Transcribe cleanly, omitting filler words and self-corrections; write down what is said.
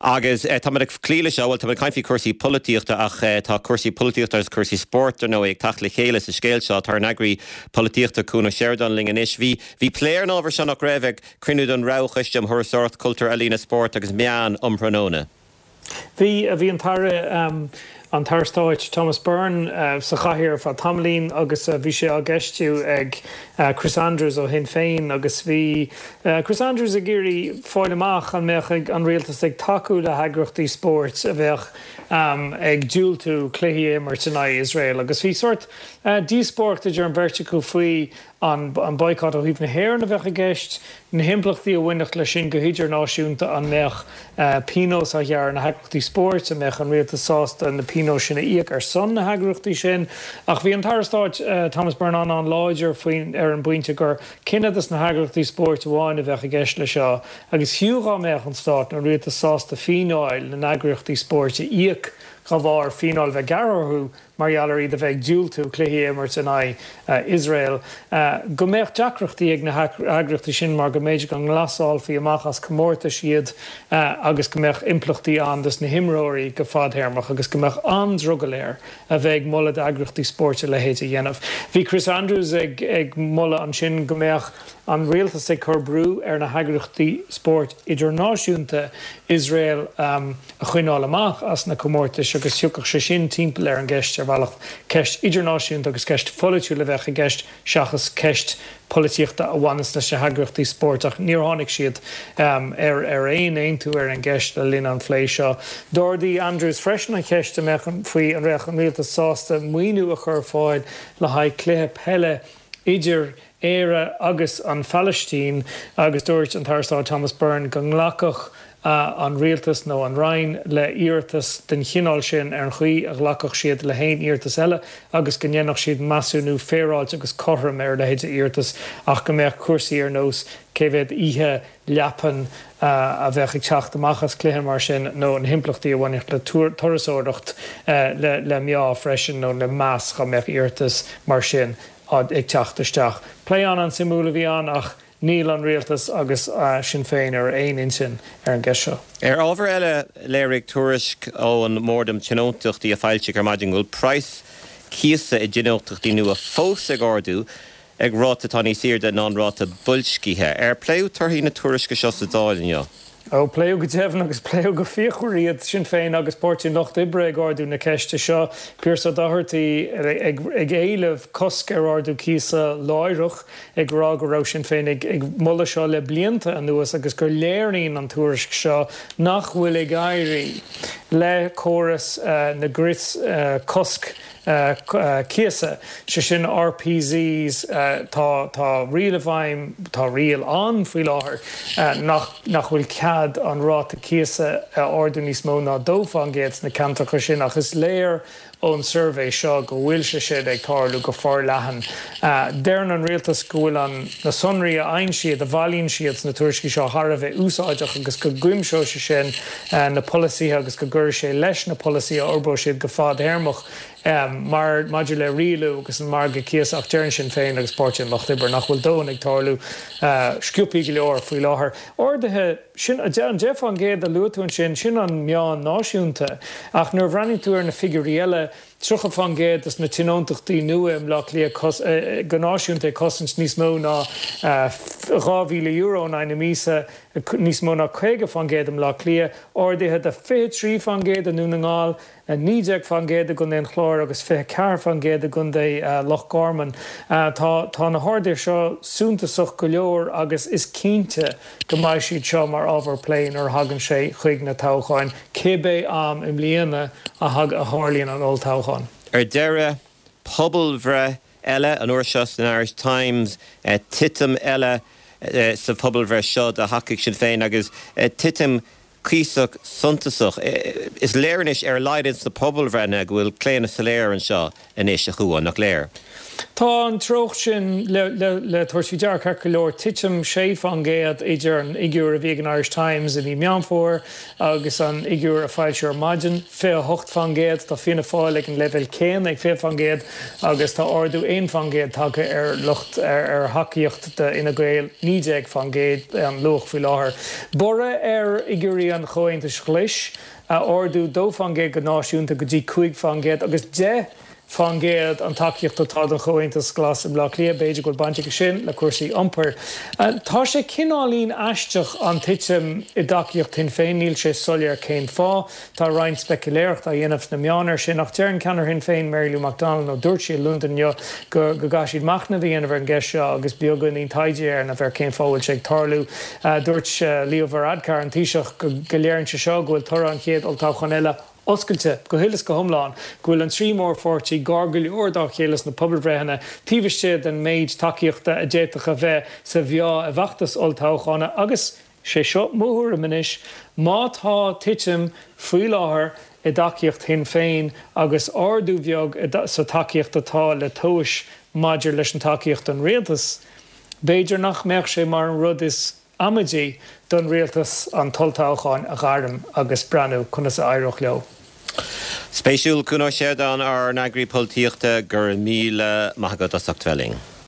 Agus táimid ag cloí leis seo, bhuel, táimid ag caint faoi chúrsaí polaitíochta ach tá cúrsaí polaitíochta agus cúrsaí spóirt, dar ndóigh, ag teacht le chéile sa scéal seo. Tá ár n-eagraí polaitíochta, Cuan Ó Seireadáin, linn anois. Bhí, bhí plé ar an ábhar seo, nach raibh, ag cruinniú den Roghchoiste um Thurasóireacht, Cultúr, Ealaíona, Spórt agus Meán um thráthnóna. Bhí, bhí an tAire, an tAire Stáit Thomas Byrne sa chathaoir ar feadh tamaillín agus bhí sé á gceistiú ag Chris Andrews ó Shinn Féin agus bhí Chris Andrews ag iarraidh fáil amach an mbeadh an rialtas ag tacú le heagraíochtaí spóirt a bheadh ag diúltú cluichí a imirt in aghaidh Iosrael agus bhí sórt díospóireacht idir an bheirt acu faoi an boycott ó thaobh na hÉireann a bheadh i gceist, na himpleachtaí a bhainfeadh leis sin go hidirnáisiúnta, an mbeadh pionós á ghearradh ar na heagraíochtaí spóirt, an mbeadh an rialtas sásta na pionóis sin a íoc ar son na heagraíochtaí sin. Ach bhí an tAire Stáit Thomas Byrne an-an-láidir faoin ar an bpointe gur cinneadh dos na heagraíochtaí spóirt amháin a bheadh i gceist leis seo agus fiú dhá mbeadh an Stát nó an rialtas sásta fíneáil na n-eagraíochtaí spóirt a íoc dá bharr fíneáil a bheith gearrtha orthu, mar gheall ar iad a bheith ag diúltú cluichí a imirt in aghaidh Iosrael, go mbeadh deacrachtaí ag na heagraíochtaí sin mar go mb'fhéidir go nglasálfaí amach as comórtais iad agus go mbeadh impleachtaí ann dos na himreoirí go fadthéarmach agus go mbeadh an-drogall air a bheith ag moladh d'eagraíochtaí spóirt a leithéid a dhéanamh. Bhí Chris Andrews ag moladh ansin go mbeadh an rialtas ag cur brú ar na heagraíochtaí spóirt idirnáisiúnta Iosrael a a choinneáil amach as na comórtais agus thiocfadh sé sin timpeall ar an gceist ar bhealach. Ceist idirnáisiúnta agus ceist pholaitiúil a bheadh i gceist seachas ceist polaitíochta a bhaineas leis na heagraíochtaí spóirt ach níor tháinig siad ar aon aontú ar an gceist le linn an phlé seo. D'ardaigh Andrews freisin an cheist an mbeadh faoi an mbeadh an rialtas sásta maoiniú a chur ar fáil le haghaidh cluiche peile idir Éire agus an Phalaistín agus dúirt an tAire Stáit Thomas Byrne go nglacfadh an rialtas nó an Roinn le hiarratas den chineál sin ar an chaoi a ghlacfadh siad le haon iarratas eile agus go ndéanfadh siad measúnú féaráilte agus cothrom ar a leithéid de iarratas ach go mbeadh cúrsaí ar nós cé mhéad oíche leapan a bheadh ag teacht amach as cluiche mar sin nó na himpleachtaí a bhainfeadh le turasóireacht le meá freisin nó le meas dá mbeadh iarratas mar sin ag teacht isteach. Plé an-an-suimiúil a bhí ann ach níl an rialtas agus Sinn Féin ar aon intinn ar an gceist seo. Ar ábhar eile, léirigh tuairisc ón mBord um Tionóntachtaí a foilsíodh ar maidin go bhfuil praghas cíosa i dtionóntachtaí nua fós ag ardú ag ráta atá níos airde ná an ráta boilscithe. Ar pléadh torthaí na tuairisce seo sa Dáil inniu? Ó, pléadh go deimhin agus pléadh go fíochmhar iad, Sinn Féin agus Páirtí an Lucht Oibre ag ardú na ceiste seo, Pearse Doherty ag éileamh cosc ar ardú cíosa láithreach, ag rá go raibh Sinn Féin ag moladh seo le blianta anuas agus gur léiríonn an tuairisc seo nach bhfuil ag éirí le córas na gcrios cosc cíosa, sé sin RPZs, tá tá riail i bhfeidhm, tá riail ann faoi láthair nach nach bhfuil cead an ráta cíosa a ardú níos mó ná 2% sna ceantracha sin ach is léir ón suirbhé seo go bhfuil sé sin ag tarlú go forleathan. Deireann an rialtas go bhfuil an na sonraí a fhaigheann siad, a bhailíonn siad sna tuairiscí seo thar a bheith úsáideach agus go gcuimseoidh sé sin na polasaithe agus go gcuirfidh sé leis na polasaithe a fhorbróidh siad go fadthéarmach mar maidir le rialú agus an margadh cíosa ach deireann Sinn Féin agus Páirtí an Lucht Oibre nach bhfuil dóthain ag tarlú sciobthaí go leor faoi láthair. Arduithe, sin an 10% a luaigh tú ansin, sin an meán náisiúnta ach nuair a bhreathnaíonn tú ar na figiúirí eile, 30% de na tionóntachtaí nua i mBleá Cliath go náisiúnta ag cosaint níos mó ná €2,000 in aghaidh na míosa, níos mó ná 50% i mBleá Cliath, arduithe de 23% i nDún na nGall, 19% i gContae an Chláir agus 24% i gContae Loch Garman. Tá tá na harduithe seo suntasach go leor agus is cinnte go mbeidh siad seo mar ábhar plé nuair a thagann sé chuig na toghcháin, cibé am i mbliana a tharlaíonn an olltoghchán. Ar deireadh, pobalbhreith eile, an uair seo san Irish Times, titim eile sa phobalbhreith seo do thacaíocht Sinn Féin agus titim cuíosach suntasach. Is léir anois, ar a laghad ins na pobalbhreitheanna, go bhfuil claonadh soiléir anseo anois, a Chuáin, nach léir? Tá an treocht sin le tabhairt faoi deara ceart go leor, titim 6% idir an fhigiúr a bhí ag an Irish Times i mí Meán Fómhair agus an fhigiúr a foilsíodh ar maidin, 28%. Tá Fianna Fáil ag an leibhéal céanna ag 20% agus tá ardú 1% tagtha ar lucht ar thacaíocht d'Fhine Gael, 19% an luach faoi láthair. Borradh ar fhigiúirí. Vótaí an Chomhaontais Ghlais, ardú 2% go náisiúnta go dtí 5% agus 10% an tacaíocht atá don Chomhaontas Glas i mBleá Cliath. B'fhéidir go bhfuil baint aige sin le cúrsaí iompair. Tá sé cineáilín aisteach an titim i dtacaíocht Shinn Féin, níl sé soiléir cén fáth. Tá roinnt speicealéireachta á dhéanamh sna meáin air sin ach deir an ceannaire Shinn Féin, Mary Lou McDonald, nó dúirt sí i Londain inniu, go gcaithfidh siad machnamh a dhéanamh ar an gceist seo agus beagáinín taighde a dhéanamh ar cén fáth a bhfuil sé ag tarlú. Dúirt Leo Varadkar, an Taoiseach, go léiríonn sé seo go bhfuil toradh an chéad olltoghcháin eile oscailte go huile is go hiomlán, go bhfuil an trí mhórpháirtí gar go leor dá chéile sna pobalbhreitheanna, taobh istigh den méid tacaíochta a d'fhéadfadh a bheith sa mheá i bhfeachtas olltoghcháin agus, sé seo mo thuairim anois, má tá titim faoi láthair i dtacaíocht Shinn Féin agus ardú bheag sa tacaíocht atá le tomhais maidir leis an tacaíocht don rialtas, b'fhéidir nach mbeadh sé mar an rud is amaidí don rialtas an t-olltoghchán a ghairm agus breathnú conas a éireodh leo. Spéisiúil, Cuan Ó Seireadáin, ár n-eagraí polaitíochta, go raibh míle maith agat as ucht bheith linn.